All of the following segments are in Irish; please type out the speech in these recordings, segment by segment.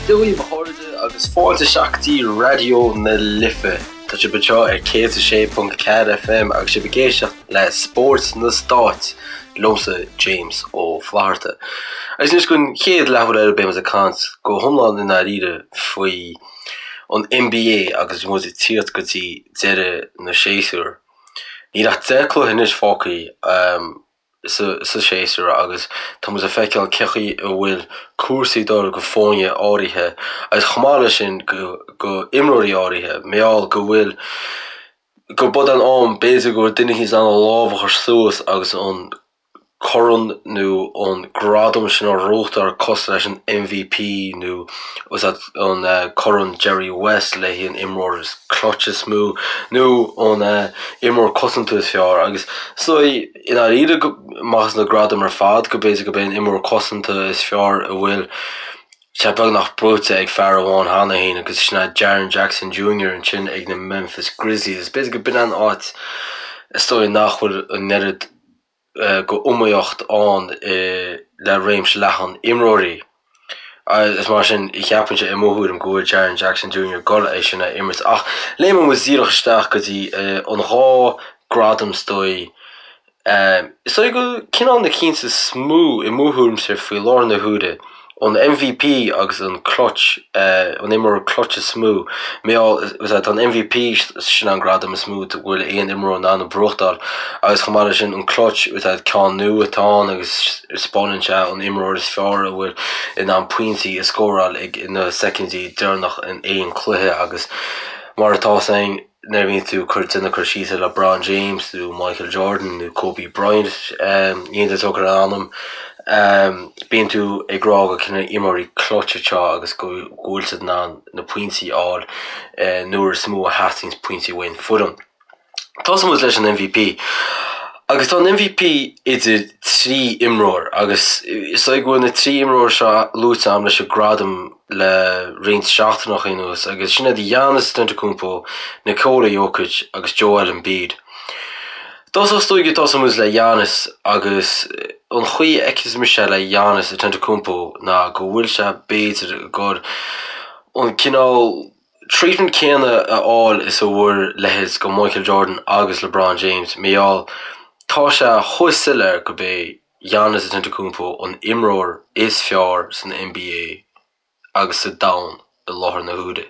Dia dhaoibh a chairde agus fáilte isteach go dtí Raidió na Life. Tá sibh anseo ar 106.4 FM agus sibh ag éisteacht le Spórt na Stát liomsa James Ó Flatharta. Agus anois don chéad leathuair eile beidh muid ag caint go hiomlán i ndáiríre faoi an NBA agus muid ag tíocht go dtí deireadh na séasúr. Níl ach 10 cluiche anois fágtha sa séasúr agus tá muid ag feiceáil cé chaoi a bhfuil cúrsaí ag dul go foirne áirithe agus chomh maith leis sin go imreoirí áirithe, mar gheall go bhfuil go b'fhada an am b'fhéidir go bhfuil duine éicint in ann a lámh a chur suas agus an corn nó an gradam sin a ghnóthachtáil cosúil leis an MVP nó an corn Jerry West le haghaidh an imreoir is clutch is mó nó an imreoir cosanta is fearr agus so i ndáiríre amach as na gradaim ar fad go b'fhéidir go b'é an imreoir cosanta is fearr a bhfuil sé beagnach buaite ag fear amháin cheana féin agus sin é Jaren Jackson Jr. ansin ag na Memphis Grizzlies. B'fhéidir go b'in an áit is dóigh nach bhfuil an oiread go iomaíocht ann le réimse leathan imreoirí. Is mar sin, cheapfainnse i mo thuairim go bhfuil Jaren Jackson Jr. ag dul é sin a imirt. Ach léimeann muid díreach isteach go dtí an dhá gradam is dóigh. Is dóigh go cineál na cinn is mó i mo thuairimse faoi láthair na huaire. An MVP agus an clutch, an imreoir clutch is mó, mar gheall, tá an MVP, sin an gradam is mó go bhfuil aon imreoir in ann a bhuachtáil agus chomh maith leis sin an clutch, ceann nua atá ann agus spáineann sé an imreoir is fearr a bhfuil in ann pointí a scóráil ag na soicindí deireanach in aon cluiche agus mar atá 's againn. Nuair a bhíonn tú ag cur déanamh cur síos ar LeBron James nó Michael Jordan nó Kobe Bryant, aon duine tóg ar a ainm, bíonn tú ag rá go cineál imreoirí clutch atá agus go bhfuil siad in ann na pointí a fháil nuair is mó a theastaíonn pointí uaidh an foireann. Tosóidh muid leis an MVP. Agus tá an MVP idir 3 imreoir agus is dóigh go bhfuil na 3 imreoir seo luaite agam leis an gradam le roinnt seachtaineacha anuas agus sin iad Giannis Antetokounmpo, Nikola Jokic agus Joel Embiid. Dtosach is dóigh go dtosóidh muid le Giannis agus an chaoi a fheiceann mise le Giannis Antetokounmpo ná go bhfuil sé b'fhéidir ag dul an cineál treatment céanna a fháil is a bhfuair leithéid go Michael Jordan agus LeBron James, mar gheall tá sé chomh soiléir go b'é Giannis Antetokounmpo an imreoir is fearr san NBA agus sa domhan i láthair na huaire.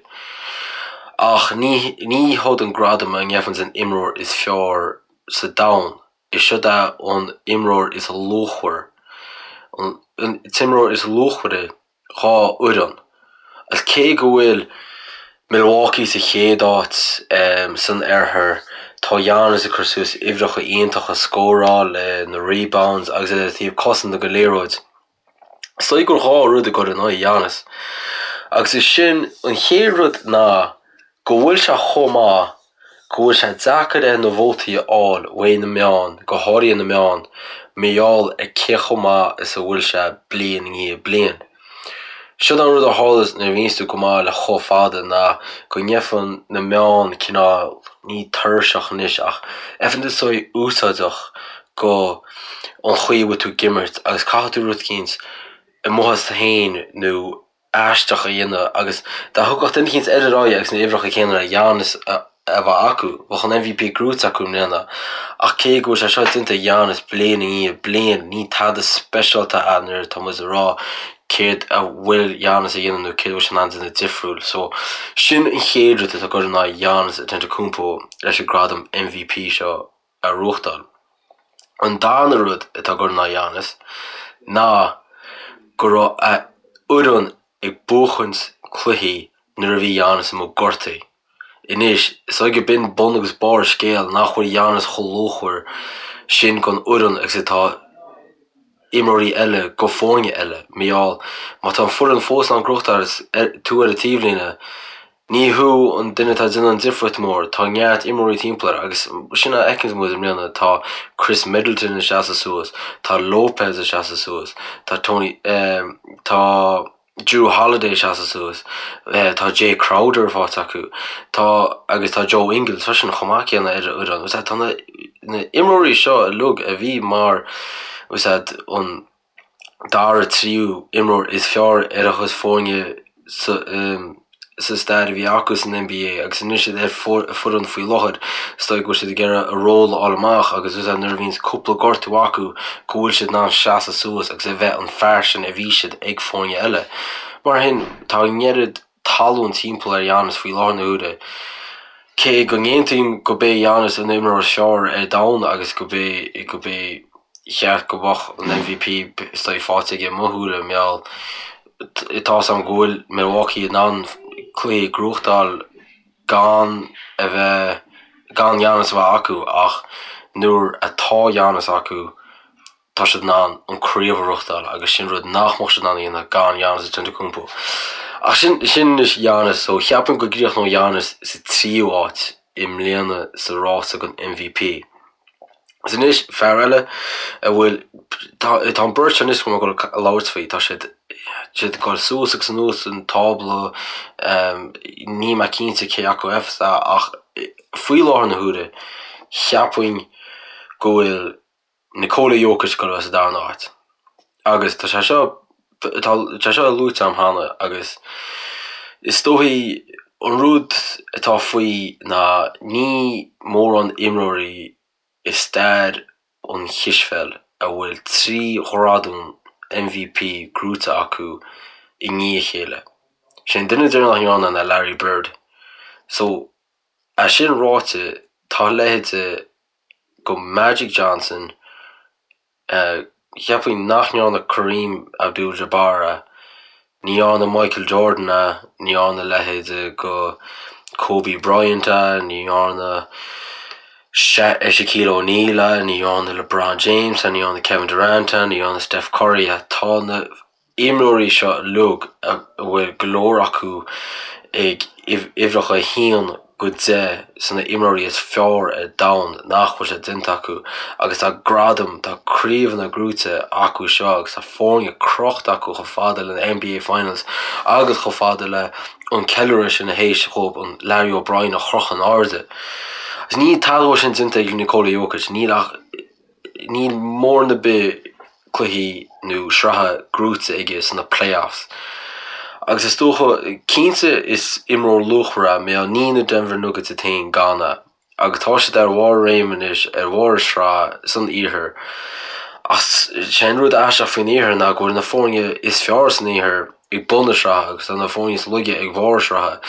Ach ní ní hiod an gradam a ngeibheanns an imreoir is fearr sa domhan, is siod é an imreoir is luachmhar, an t-imreoir is luachmhaire dhá fhoireann. Agus cé go bhfuil Milwaukee sa chéad áit san oirthear, tá Giannis ag cur suas uimhreacha iontacha, scóráil, na rebounds agus é ar taobh cosanta go liathróid. Is dóigh gur 2 rud ag cur in aghaidh Giannis. Agus is sin an chéad rud ná go bhfuil sé chomh maith go bhfuil sé deacair air na vótaí a fháil uaidh na meáin, go háirithe na meáin, mar gheall ar cé chomh maith is a bhfuil sé bliain i ndiaidh bliain. Siod an rud a tharlaíos nuair a bhíonns tú go maith le chomh fada ná go ngeibheann na meáin cineál, ní tuirseach anois ach gheibheann tú saghas úsáideach go an chaoi a bhfuil tú ag imirt agus caithfidh tú rud eicínt amuigh as tú féin nó aisteach a dhéanamh agus dá thiocfadh duine eicínt eile ar aghaidh agus na uimhreacha céanna le Giannis a bheith acu, bheadh an MVP gnóite acu i mbliana. Ach cé go bhfuil sé seo déanta ag Giannis bliain i ndiaidh bliain, ní tada speisialta é nuair atá muid ag rá céard a bhfuil Giannis a dhéanamh nó céard a bhfuil sé in ann déanamh difriúil. So, sin an chéad rud atá ag cur in aghaidh Giannis Antetokounmpo leis an gradam MVP seo a ghnóthachtáil. An darna rud atá ag cur in aghaidh Giannis ná go raibh a fhoireann ag buachaint cluichí nuair a bhí Giannis amuigh gortaithe. Anois, is dóigh go b'in bun agus barr an scéil nach bhfuil Giannis chomh luachmhar sin don fhoireann agus atá imreoirí eile go foirne eile. Mar gheall, má tá an foireann fós in ann gnóthachtáil agus tú ar an taobhlíne, Ní thú an duine atá ag déanamh an difríocht mór, tá neart imreoirí timpeall air agus sin a fheiceann muid i mbliana, tá Khris Middleton ag seasamh suas, tá Lopez ag seasamh suas, tá Tony, tá Jrue Holiday ag seasamh suas, tá Jae Crowder faighte acu, tá, agus tá Joe Ingles freisin chomh maith céanna ar an fhoireann. Tá na imreoirí seo uilig a bhí mar, an. dara, tríú imreoir is fearr ar a chuid foirne. Sa stair a bhí acu san NBA agus anois iad ar foireann faoi láthair, is dóigh go bhfuil siad ag iarraidh a ról a fháil amach agus is nuair a bhíonns cúpla gortú acu go bhfuil siad in ann seasamh suas agus a bheith an fear sin a bhí siad ag foirne eile. Mar sin, tá an oiread talún timpeall ar Giannis faoi láthair na huaire. Cé go n-aontaím go b'é Giannis an imreoir is fearr ar domhan agus go b'é go b'é cheart go mbeadh an MVP is dóigh faighte aige i mo shúile, mar gheall Tá 's a'm go bhfuil Milwaukee in ann cluichí a ghnóthachtáil gan a bheith, gan Giannis a bheith acu ach nuair atá Giannis acu tá siad in ann an craobh a ghnóthachtáil agus sin rud nach mbeadh siad in ann a dhéanamh gan Giannis Antetokounmpo. Ach sin, sin anois Giannis so cheapfainn go gcríochnóidh Giannis sa tríú háit i mbliana sa rása don MVP. Agus anois, fear eile a bhfuil, tá an beirt anois go bhfuil mé ag labhairt faoi, tá siad siad ag dul suas agus anuas an tábla, níl mé cinnte cé acu a bheas ach faoi láthair na huaire, cheapfainn go bhfuil Nikola Jokic ag dul a bheith sa darna háit. Agus tá sé seo, tá sé seo luaite agam cheana agus is dóichí an rud atá faoi ná ní mórán imreoirí i stair an chispheil a bhfuil 3 ghradam MVP gnóite acu i ndiaidh a chéile. Sé an duine deireanach a ndearna ná Larry Bird. So, é sin ráite, tá a leithéide go Magic Johnson, Cheapfainn nach ndearna Kareem Abdul-Jabbar é, ní dhearna Michael Jordan é, ní dhearna a leithéide go Kobe Bryant é, ní dhearna Shaquille O'Neal é, ní dhearna LeBron James é, ní dhearna Kevin Durant é, ní dhearna Steph Curry é. Tá na imreoirí seo uilig, a bhfuil go leor acu ag uimhreacha 1 go 10 sna imreoirí is fearr ar domhan, nach bhfuil sé déanta acu agus tá gradaim, tá craobhanna gnóite acu seo agus tá foirne crochta acu chomh fada le na NBA Finals agus chomh fada le an ceiliúradh sin théis dhóibh an Larry O'Brien a chrochadh in airde. Agus níl tada dhó sin déanta ag Nikola Jokic, níl ach. Níl mórán ar bith cluichí nó sraithe gnóite aige sna playoffs. Agus is dócha, cinnte is imreoir luachmhar é, mar níl na Denver Nuggets iad féin gan é. Agus tá siad ar bharr a réime anois, ar bharr a sraith san iarthar. Ach sé an rud aisteach faoin iarthar ná go bhfuil na foirne is fearr san iarthar ag bun na sraithe agus tá na foirne is laige ag barr sraithe.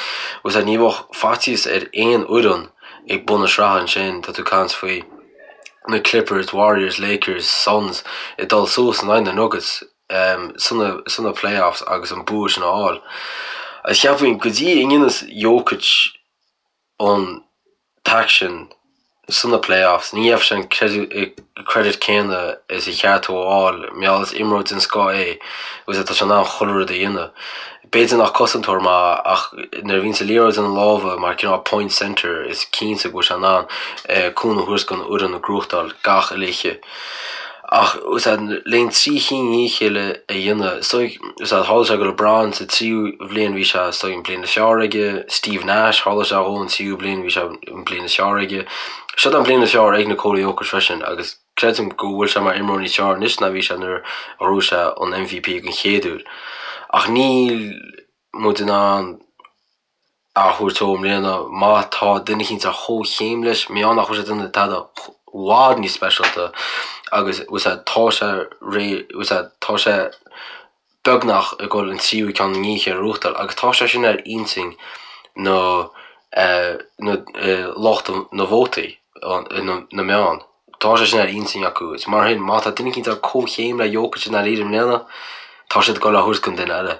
Agus ní bheadh faitíos ar aon fhoireann ag bun na sraithe ansin, tá tú ag caint faoi. na Clippers, Warriors, Lakers, Suns ag dul suas in aghaidh na Nuggets sna playoffs agus an bua sin a fháil. Agus cheapfainn go dtí a ndéanfas Jokic an t-aicsean sna playoffs, ní gheobhaidh sé an credit céanna is a cheart dó a fháil mar gheall is imreoir den scoth é agus tá sé in ann chuile rud a dhéanamh. B'fhéidir nach cosantóir maith ach nuair a bhíonns an liathróid ina lámha mar cineál point centre is cinnte go bhfuil sé in ann cúnamh a thabhairt don fhoireann a ghnóthachtáil gach oíche. Ach le trí chinn i ndiaidh a chéile a dhéanamh, is dóigh, tharla sé go LeBron sa tríú bhliain bhí sé is dóigh an bliain is fearr aige, Steve Nash tharla sé dhó an tríú bliain bhí sé an bliain is fearr aige. Seo an bliain is fearr ag Nikola Jokic freisin agus Creidim go bhfuil sé mar imreoir níos fearr anois ná bhí sé nuair a ghnóthaigh sé an MVP den chéad uair. Ach níl muid in ann a thabhairt dó i mbliana má tá duine eicínt ar chomhchéim leis, mar gheall nach bhfuil sé ag déanamh tada i bhfad níos speisialta agus tá sé réidh, tá sé beagnach ag dul an tríú ceann i ndiaidh a chéile a ghnóthachtáil agus tá sé sin ar intinn na lucht na vótaí, na meán. Tá sé sin ar intinn acu. Is mar sin, má tá duine eicínt ar comhchéim le Jokic i ndáiríre i mbliana, tá siad ag dul á thabhairt don duine eile.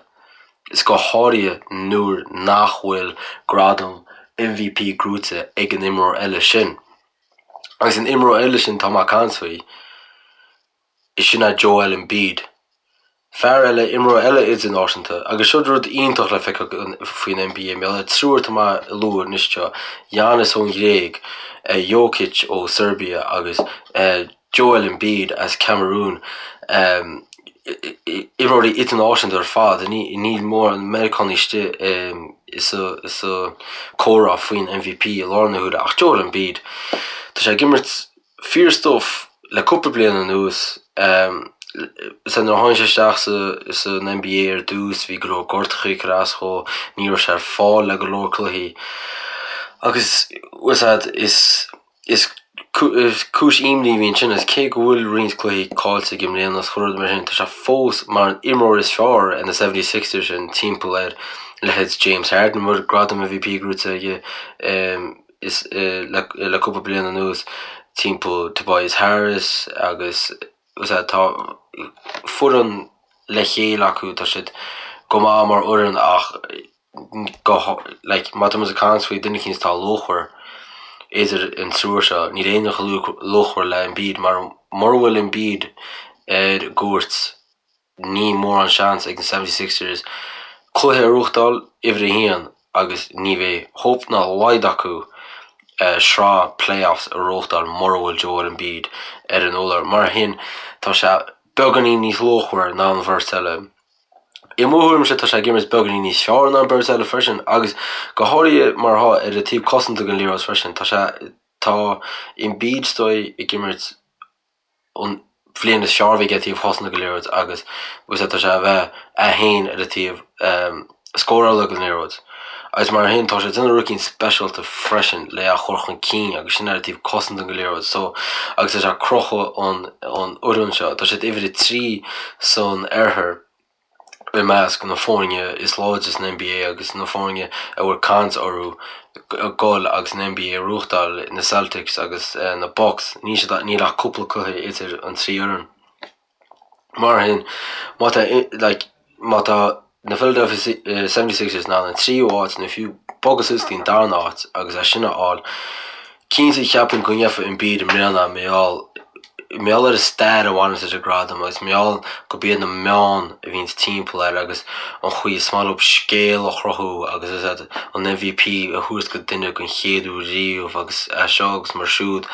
Is go háirithe nuair nach bhfuil gradam MVP gnóite ag an imreoir eile sin. Agus an imreoir eile sin atá mé ag caint faoi, is sin é Joel Embiid. Fear eile, imreoir eile idirnáisiúnta, agus seo rud iontach le feiceáil faoin NBA, mar gheall ar triúr atá mé a lua anois seo, Giannis ón Ghréig, Jokic ó Serbia agus Joel Embiid as Cameroon, imreoirí idirnáisiúnta ar fad, níl mórán Meiriceánaigh istigh sa comhrá faoin MVP i láthair na huaire, ach Joel Embiid, tá sé ag imirt fíor stuif le cúpla bliain anuas. Sea, nuair a tháinig sé isteach san NBA ar dtús, bhí go leor gortachaí ag cur as dhó, ní raibh sé ar fáil le go leor cluichí. Agus, bhfuil a fhios a'd, is, is cúis imní a bhí ansin agus cé go bhfuil roinnt cluichí caillte aige i mbliana is chuile rud mar sin, tá sé fós mar an imreoir is fearr ar na 76ers sin timpeall ar leithéid James Harden, a bhfuil gradam MVP gnóite aige is le cúpla bliain anuas, timpeall Tobias Harris agus tá foireann le chéile acu, tá siad go maith mar fhoireann ach go like má tá muid ag caint faoi duine eicínt atá luachmhar idir an triúr seo, níl éinne chomh luachmhar le Embiid mar mura bhfuil Embiid ar an gcúirt níl mórán seans ag na 76ers cluiche a ghnóthachtáil uimhir a haon agus ní bheidh hope ná a laghad acu sraith playoffs a ghnóthachtáil mura bhfuil Joel Embiid ar an urlár. Mar sin tá sé beagáinín níos luachmhaire ná an bheirt eile. I mo thuairimse tá sé ag imirt beagáinín níos fearr ná an bheirt eile freisin agus go háirithe mar atá ar an taobh cosanta den liathróid freisin. Tá sé tá Embiid is dóigh ag imirt an bhliain is fearr a bhí aige taobh cosanta den liathróid agus bhfuil a fhios a'd tá sé a bheith é féin ar an taobh scórála den liathróid. Agus mar sin tá sé ag déanamh rud eicínt speisialta freisin le é a chur chun cinn agus sin ar an taobh cosanta den liathróid so agus tá sé ag crochadh an an fhoireann seo. Tá siad uimhir a 3 san oirthear i measc na foirne is láidre san NBA agus na foirne a bhfuil caint orthu dul agus an NBA a ghnóthachtáil, na Celtics agus na Bucks. Níl siad níl ach cúpla cluiche idir an trí fhoireann. Mar sin, má tá like má tá na Philadelphia 76ers in ann an tríú háit nó fiú bogadh suas go dtí an darna háit agus é sin a fháil, Cinnte, cheapfainn go ngeofa Embiid i mbliana mar gheall mar gheall ar an stair a bhaineanns leis an gradam agus mar gheall gurb iad na meáin a bhíonns timpeall air agus an chaoi is maith leo scéal a chruthú agus is ea an MVP a thabhairt go duine den chéad uair riamh agus é seo agus mar siúd.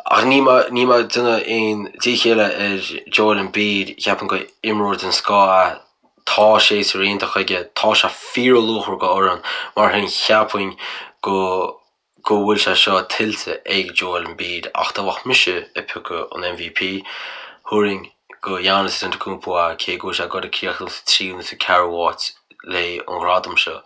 Ach níl mé níl mé ag déanamh aon díchéille ar Joel Embiid, cheapfainn gur imreoir den scoth é, tá séasúr iontach aige, tá sé fíorluachmhar go fhoireann, mar sin cheapfainn go go bhfuil sé seo tuillte ag Joel Embiid ach dá mbeadh mise ag piocadh an MVP, thabharfainn go Giannis Antetokounmpo é cé go bhfuil sé ag dul ag críochnú sa tríú nó sa ceathrú háit le an ghradam seo.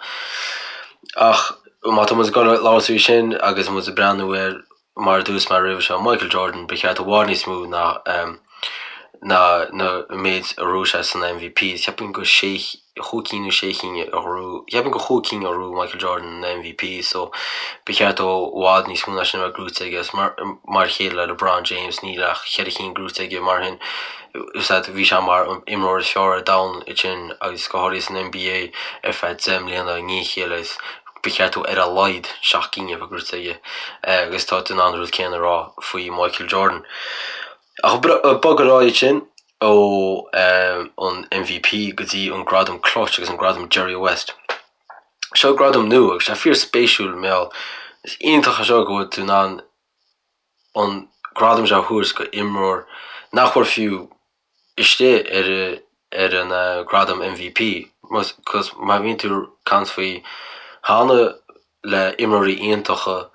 Ach má tá muid ag dul ag labhairt faoi sin agus muid ag breathnú ar mar a dúirt mé roimhe seo, Michael Jordan, ba cheart i bhfad níos mó ná ná na méid a ghnóthaigh sé san MVP. Cheapfainn go sé chúig cinn nó sé cinn a ghnóthaigh, cheapfainn gur chúig cinn a ghnóthaigh Michael Jordan an MVP so ba cheart dó i bhfad níos mó ná sin a bheith gnóite aige agus mar mar a chéile le LeBron James níl ach cheithre cinn gnóite aige mar sin is ea bhí sé mar an imreoir is fearr ar domhan ansin agus go háirithe san NBA ar feadh 10 mbliana i ndiaidh a chéile agus ba cheart dó ar a laghad seacht gcinn a bheith gnóite aige agus tá tú in ann an rud céanna a rá faoi Michael Jordan. Ach bog ar aghaidh ansin ó an MVP go dtí an gradam Clutch agus an gradam Jerry West. Seo gradam nua agus sé fíor spéisiúil mar gheall is iontach é seo go bhfuil tú in ann an gradam seo a thabhairt go imreoir nach bhfuil fiú istigh ar ar an gradam MVP cos má bhíonn tú ag caint faoi cheana le imreoirí iontacha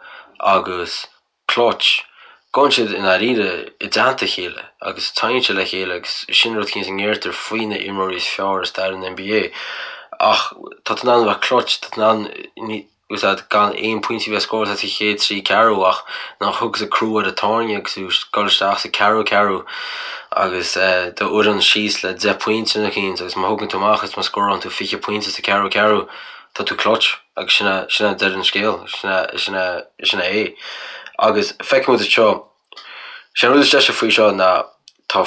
agus clutch. Gabhann siad i ndáiríre i dteannta a chéile agus téann siad le chéile agus sin rud eicínt a ndeirtear faoi na imreoirí is fearr i stair an NBA. Ach tá tú in ann a bheith clutch, tá tú in ann úsáid gan aon pointí a bheith scóráilte sa chéad trí ceathrú ach nuair a thiocfas an crú ar an tairne agus tú ag dul isteach sa ceathrú ceathrú agus do fhoireann síos le 10 pointe nó eicínt agus má thugann tú amach is má scórálann tú 20 pointe sa ceathrú ceathrú tá tú clutch agus sin é sin é deireadh an scéil, sin é sin é sin é é. Agus feicfidh muid anseo, sé an rud is deise faoi seo ná tá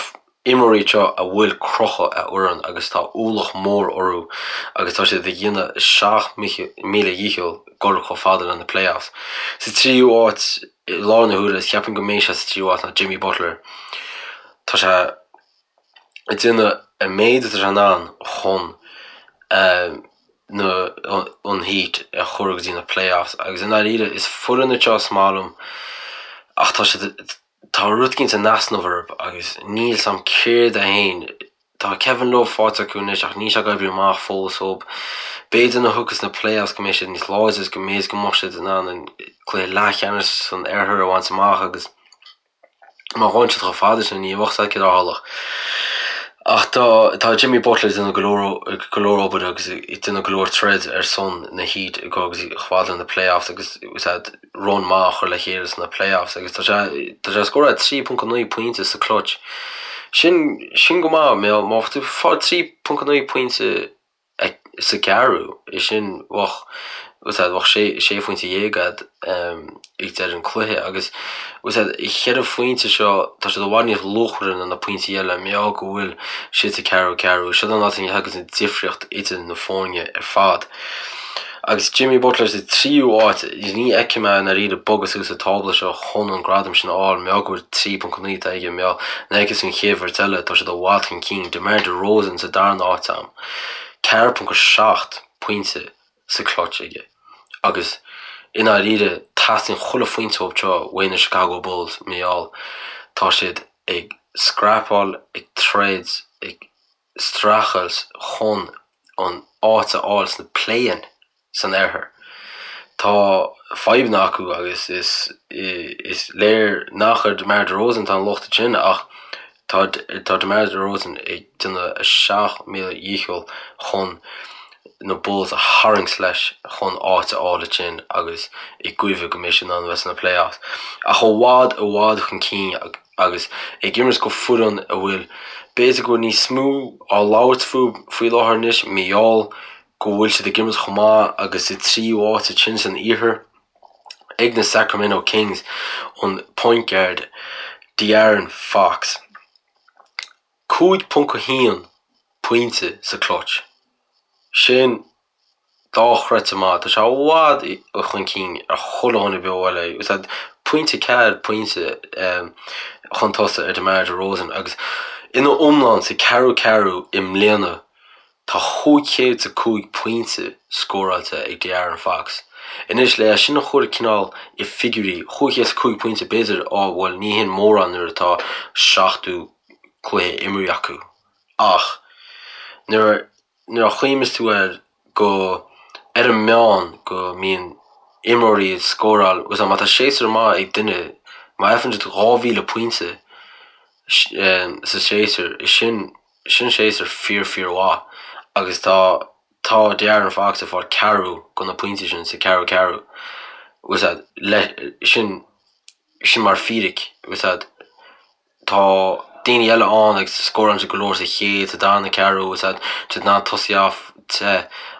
imreoirí anseo a bhfuil crochadh ar fhoireann agus tá ualach mór orthu agus tá siad ag déanamh a seacht míle dhícheall dul chomh fada le na playoffs. Sa tríú háit i láthair na huaire is ceapaim go mbeidh sé sa tríú háit ná Jimmy Butler. Tá sé ag déanamh an méid atá sé in ann chun na an Heat a chur go dtí na playoffs agus i ndáiríre is foireann iad seo is maith liom ach tá siad tá rud eicínt in easnamh orthu agus níl 's a'm céard é féin. Tá Kevin Love faighte acu anois ach níl sé ag oibriú amach fós dhób. B'fhéidir nuair a thiocfas na playoffs go mbeidh siad níos láidre agus go mbeidh go mbeadh siad in ann an cluiche leathcheannais san oirthear a bhaint amach agus Má ghabhann siad chomh fada sin, ní bheadh a fhios agat céard a tharlódh. Ach tá tá Jimmy Butler ag déanamh go leor go leor obair agus ag déanamh go leor troid ar son na Heat ag agus chomh fada le na playoffs agus run maith a chur le chéile sna playoffs agus tá sé tá sé ag scóráil 3.9 pointe sa clutch. Sin sin go maith má má tá tú ag fáil 3.9 pointe sa gceathrú, é sin bheadh bheadh sé sé phointe dhéag agat ag deireadh an cluiche agus an cheithre phointe seo tá siad i bhfad níos luachmhaire ná na pointí eile mar gheall go bhfuil siad sa ceathrú ceathrú. Seo an áit a thagann an difríocht idir na foirne ar fad. Agus Jimmy Butler sa tríú áit, ní fheicim é i ndáiríre bogadh suas sa tábla seo chun an gradam sin a fháil, mar gheall go bhfuil 3.9 atá aige, mar gheall nuair a fheiceann tú an chéad bheirt eile, tá siad i bhfad chun cinn, DeMar DeRozan sa darna áit a'm, 4.7 pointe sa clutch aige agus i ndáiríre teastaíonn chuile phointe uathu seo uaidh na Chicago Bulls mar gheall tá siad ag scrapáil, ag troid, ag streachailt chun an áit a fháil sna play-in san oirthear. Tá fadhbanna acu agus is is léir nach ar DeMar DeRozan atá an locht ansin ach tá tá DeMar DeRozan ag déanamh a 7000 dhícheall chun na Bulls a tharraingt leis chun áit a fháil ansin agus i gcuimhne go mbeidh siad in ann a bheith sna playoffs. Ach i bhfad i bhfad chun cinn agus ag imirt go foireann a bhfuil b'fhéidir go bhfuil níos mó á labhairt faoi láthair anois mar gheall go bhfuil siad ag imirt chomh maith agus sa tríú áit ansin san iarthar ag na Sacramento Kings an point guard De'Aaron Fox. 5.1 pointe sa clutch. Sin dochreidte maith. Tá sé i bhfad chun cinn ar chuile dhuine beo eile. Is é pointe 4 pointe chun tosaigh ar DeMar DeRozan agus ina iomlán sa ceathrú ceathrú i mbliana tá 505 pointe scóráilte ag De'Aaron Fox. Anois le é sin a chur cineál i figiúirí, 505 pointe b'fhéidir, á bhuel ní hin mórán nuair atá 70 cluiche imeartha acu ach nuair nuair a chuimhníos tú air go ar an meán go mbíonn imreoirí ag scóráil agus má tá séasúr maith ag duine má fhaigheann siad 2,000 pointe sa séasúr sin sin séasúr fíor fíor mhaith agus tá tá De'Aaron Fox ag fáil ceathrú de na pointí sin sa ceathrú ceathrú agus le sin sin mar fíric agus Tá daoine eile ann agus scórálann siad go leor sa chéad, sa darna ceathrú agus tá siad in ann tosaí off te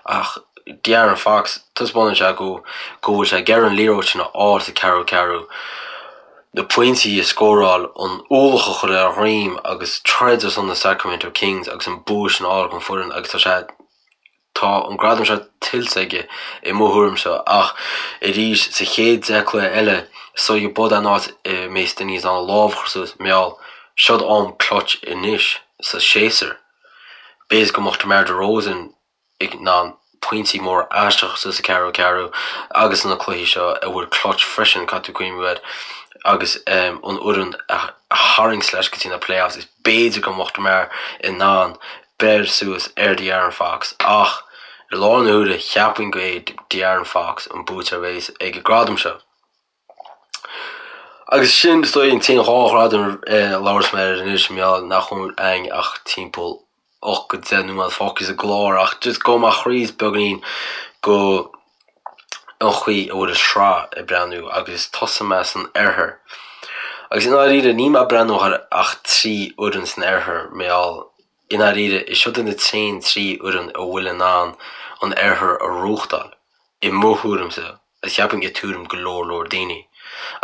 ach De'Aaron Fox, taispeánann sé go go bhfuil sé ag iarraidh an liathróid sin a fháil sa ceathrú ceathrú, na pointí a scóráil, an ualach a chur ar a dhroim agus troid ar son na Sacramento Kings agus an bua sin a fháil don foireann agus tá sé Tá an gradam seo tuillte aige i mo thuairimse ach arís sa chéad 10 cluiche eile is dóigh b'shin an áit a mbeidh daoine in ann a lámh a chur suas mar gheall seod am clutch anois sa séasúr. B'fhéidir go mbeadh DeMar DeRozan in ann pointí móra aisteacha suas sa ceathrú ceathrú agus sna cluichí seo a bhfuil clutch freisin caithfidh tú cuimhniú air agus an fhoireann a tharraingt leis go dtí na playoffs is b'fhéidir go mbeadh DeMar in ann beir suas ar De'Aaron Fox ach i láthair na huaire cheapfainn go é De'Aaron Fox an buaiteoir a bheas ag an gradam seo. Agus sin is dóigh an t-aon dhá ghradam a labhras mé air anois mar gheall nach bhfuil againn ach timpeall 8 go 10 nóiméad fágtha sa gclár ach just gabhfaidh mé thríd beagáinín go an chaoi a bhfuil an sraith ag breathnú agus tosóidh mé san oirthear. Agus i ndáiríre níl mé ag breathnú ar ach 3 fhoireann san oirthear mar gheall i ndáiríre is siod na t-aon 3 fhoireann a bhfuil in ann an oirthear a ghnóthachtáil, i mo thuairimse, agus cheapfainn i tuairim go leor leor daoine.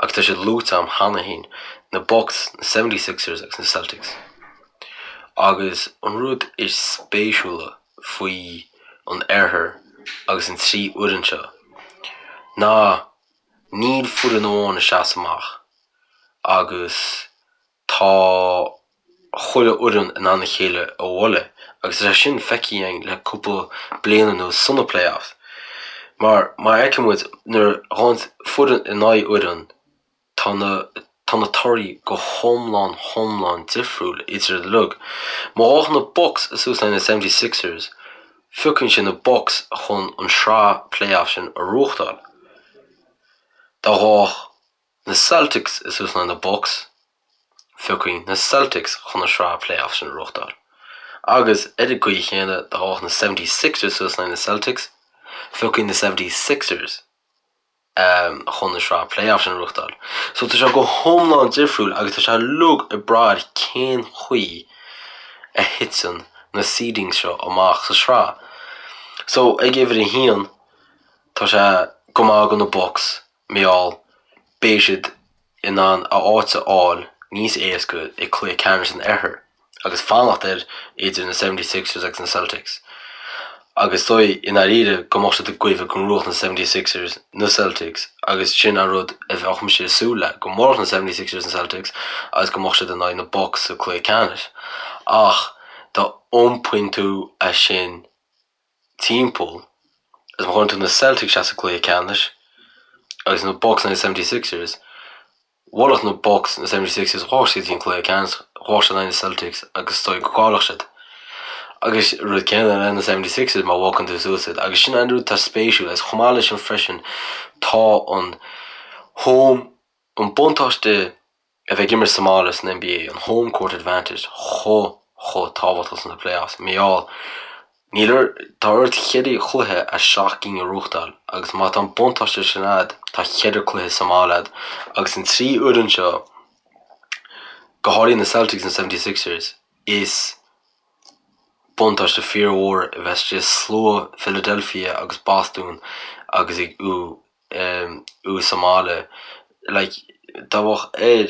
Agus tá siad luaite agam cheana féin, na Bucks, na 76ers agus na Celtics. Agus an rud is spéisiúla faoi an oirthear agus an 3 fhoireann seo ná níl foireann amháin ag seasamh amach agus tá chuile fhoireann in ann a chéile a bhualadh agus tá sé sin feicthe againn le cúpla bliain anuas sna playoffs mar mar a fheiceann muid nuair a ghabhann foireann in aghaidh fhoireann Tá na tá na torthaí go hiomlán hiomlán difriúil idir iad uilig. Má ghabhann na Bucks suas le na 76ers, phiocann sé na Bucks chun an sraith playoff sin a ghnóthachtáil. Dá ngabhfadh na Celtics suas le na Bucks, phiocfainn na Celtics chun an sraith playoff sin a ghnóthachtáil. Agus ar an gcaoi chéanna, dá bhfaigheadh na 76ers suas in aghaidh na Celtics, phiocfaí na 76ers chun an sraith playoff sin a ghnóthachtáil. So tá sé go hiomlán difriúil agus tá sé uilig ag brath ar cén chaoi a thiteann na seedings seo amach sa sraith. So ag uimhir a haon, tá sé go maith do na Bucks mar gheall beidh siad in ann a áit a fháil níos éasca i cluiche ceannais an Oirthir agus fanacht ar idir na 76ers agus na Celtics. Agus is dóigh i ndáiríre go mbeadh siad ag goimh go ngnóthódh na 76ers na Celtics agus sin an rud a bheadh mise ag súil le, go mbuailfeadh na 76ers na Celtics agus go mbeadh siad in aghaidh na Bucks sa cluiche ceannais. Ach dá iompaíonn tú é sin timpeall agus má chuireann tú na Celtics isteach sa gcluiche ceannais agus na Bucks in aghaidh na 76ers, bhuailfeadh na Bucks na 76ers, ghabhfadh siad go dtí an cluiche ceannais, ghabhfadh siad in aghaidh na Celtics agus is dóigh go gcaillfeadh siad. Agus rud céanna le na 76ers má bhogann tú suas iad. Agus sin an rud atá spéisiúil agus chomh maith leis sin freisin tá an home, an buntáiste a bheith ag imirt sa mbaile san NBA, an home court advantage, chomh, chomh tábhachtach sna playoffs. Mar gheall, níl ar, tá ort cheithre chluiche as seacht gcinn a ghnóthachtáil agus má tá an buntáiste sin a'd, tá cheithre cluiche sa mbaile a'd agus an trí fhoireann seo, go háirithe na Celtics and 76ers, is buntáiste fíormhór a bheith istigh i slua Philadelphia agus Boston agus ag thú sa mbaile. Like, dá mbeadh ar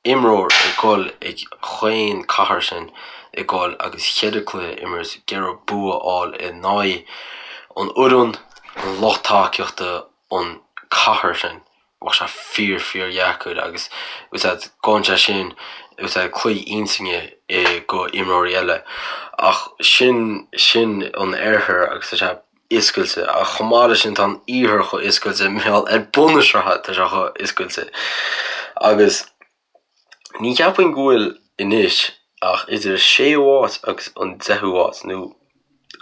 imreoir ag dul ag chaon cathair sin ag dul agus cheithre cluiche a imirt ag iarraidh bua a fháil in aghaidh an fhoireann, an lucht tacaíochta, an cathair sin, bheadh sé fíor fíor dheacair agus úsáid gabhann sé sin úsáid claí intinne go imreoirí eile. Ach sin sin an oirthear agus tá sé oscailte ach chomh maith leis sin tá an iarthar chomh oscailte mar gheall ar bun na sraithe tá sé chomh oscailte agus ní cheapfainn go bhfuil anois ach idir an séú háit agus an deichiú háit nó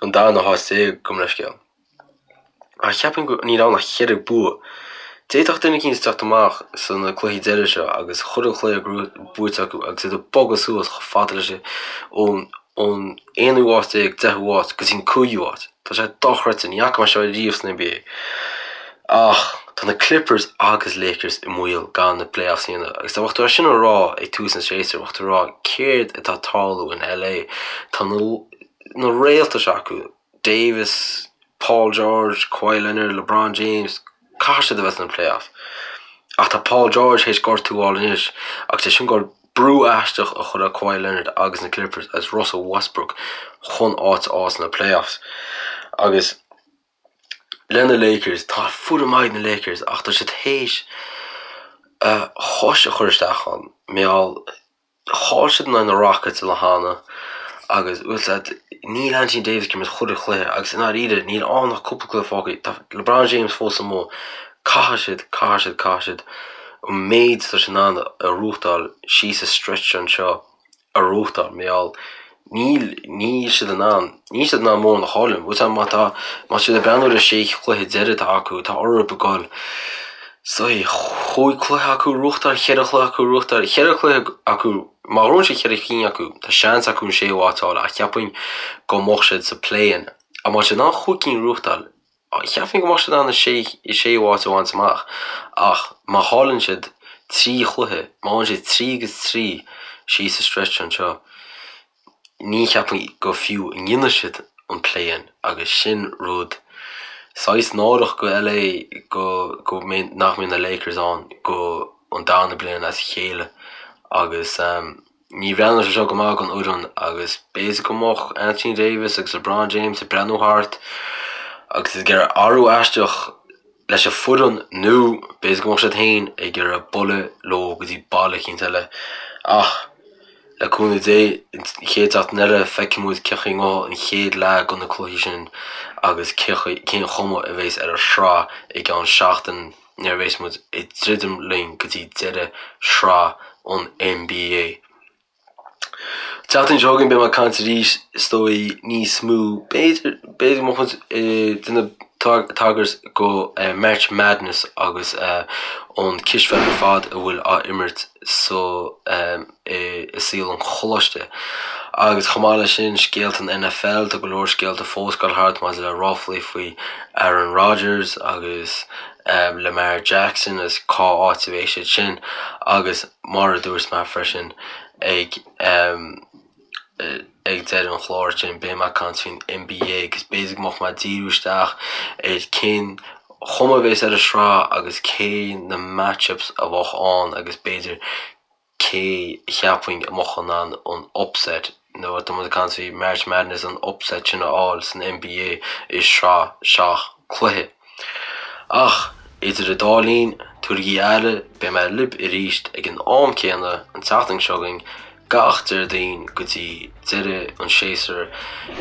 an darna háit déag gabh mo leithscéal. Ach cheapfainn go níl ann ach cheithre bua. D'fhéadfadh duine eicínt teacht amach sna cluichí deiridh seo agus chuile chluiche buaite acu agus iad ag bogadh suas chomh fada leis ón ón aonú háit déag, deichiú háit go dtí an cúigiú háit. Tá sé dochreidte, ní fhaca mé seo riamh san NBA. Ach tá na Clippers agus Lakers i mbaol gan na playoffs a dhéanamh. Agus dá mbeadh tú é sin a rá ag tús an tséasúir, bheadh tú ag rá céard atá ag tarlú in LA? Tá na na réalta seo acu, Davis, Paul George, Kawhi Leonard, LeBron James, caithfidh siad a bheith sna playoffs. Ach tá Paul George théis gortú a fháil anois agus é sin ag brú aisteach a chur ar Kawhi Leonard agus na Clippers agus Russell Westbrook chun áit a fháil sna playoffs. Agus le na Lakers, tá foireann maith ag na Lakers ach tá siad théis a chois a chur isteach ann. Mar gheall, chaill siad in aghaidh na Rockets an lá cheana agus bhfuil 's a'd, níl Anthony Davis ag imirt chuile chluiche agus i ndáiríre níl ann ach cúpla cluiche fágtha. Tá LeBron James fós amuigh. Caithfidh siad, caithfidh siad, caithfidh siad an méid atá siad in ann a ghnóthachtáil síos an stretch anseo a ghnóthachtáil mar gheall níl, níl siad in ann, níl siad in ann mórán a chailleadh. Bhfuil 's a'd má tá, má tá siad ag breathnú ar an sé chluiche deiridh atá acu, tá orthu ag goil so chúig chluiche acu a ghnóthachtáil, cheithre chluiche acu a ghnóthachtáil, cheithre chluiche acu, má ghnóthaíonn siad cheithre cinn acu, tá seans acu an séú háit a fháil ach cheapfainn go mbeadh siad sa play-in. Ach má tá siad in ann chúig cinn a ghnóthachtáil, Cheapfainn go mbeadh siad in ann an séú háit a bhaint amach ach má chailleann siad 3 chluiche, má fhaigheann siad 3 agus 3 síos an stretch anseo, ní cheapfainn go fiú a ndéanfaidh siad an play-in agus sin rud saghas náireach go LA go go mbeidh nach mbeidh na Lakers ann go an darna bliain as a chéile agus. Ní bhreathnaíonn sé seo go maith don fhoireann agus b'fhéidir go mbeadh Anthony Davis agus LeBron James ag breathnú thart agus ag iarraidh athrú aisteach leis an foireann nó b'fhéidir go mbeadh siad féin ag iarraidh bualadh leo go dtí baile eicínt eile. Ach le cúnamh Dé, an chéad seachtain eile feicfidh muid cén chaoi a ngabhfaidh an chéad leath de na cluichí sin agus cén chuma a bheas ar an sraith i gceann seachtain. nuair a bheas muid ag druidim linn go dtí deireadh shraith an NBA. An tseachtain seo chugainn beidh mé ag caint arís is dóigh níos mó, b'fhéidir, b'fhéidir go mbeadh muid ag déanamh tagairt go March Madness agus an cispheil ar fad a bhfuil á imirt sa i saol an choláiste. Agus chomh maith leis sin, scéalta an NFL, tá go leor scéalta fós ag dul thart maidir le ráflaí faoi Aaron Rodgers agus Lamar Jackson agus cá áit a bheidh siad sin agus mar a dúirt mé freisin ag ag deireadh an chláir sin beidh mé ag caint faoin NBA agus b'fhéidir go mbeadh mé ag díriú isteach ar cén chuma a bheas ar an sraith agus cé na match-ups a bheadh ann agus b'fhéidir cé a cheapfainn a mbeadh in ann an upset, nó tá muid ag caint faoi March Madness, an upset sin a fháil san NBA i sraith seacht cluiche. Ach idir an dá linn, tabhairigí aire, beidh mé libh arís ag an am céanna an tseachtain seo chugainn, gach Déardaoin go dtí deireadh an séasúir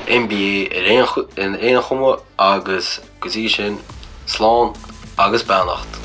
NBA ar aon chuma agus go dtí sin, slán agus beannacht.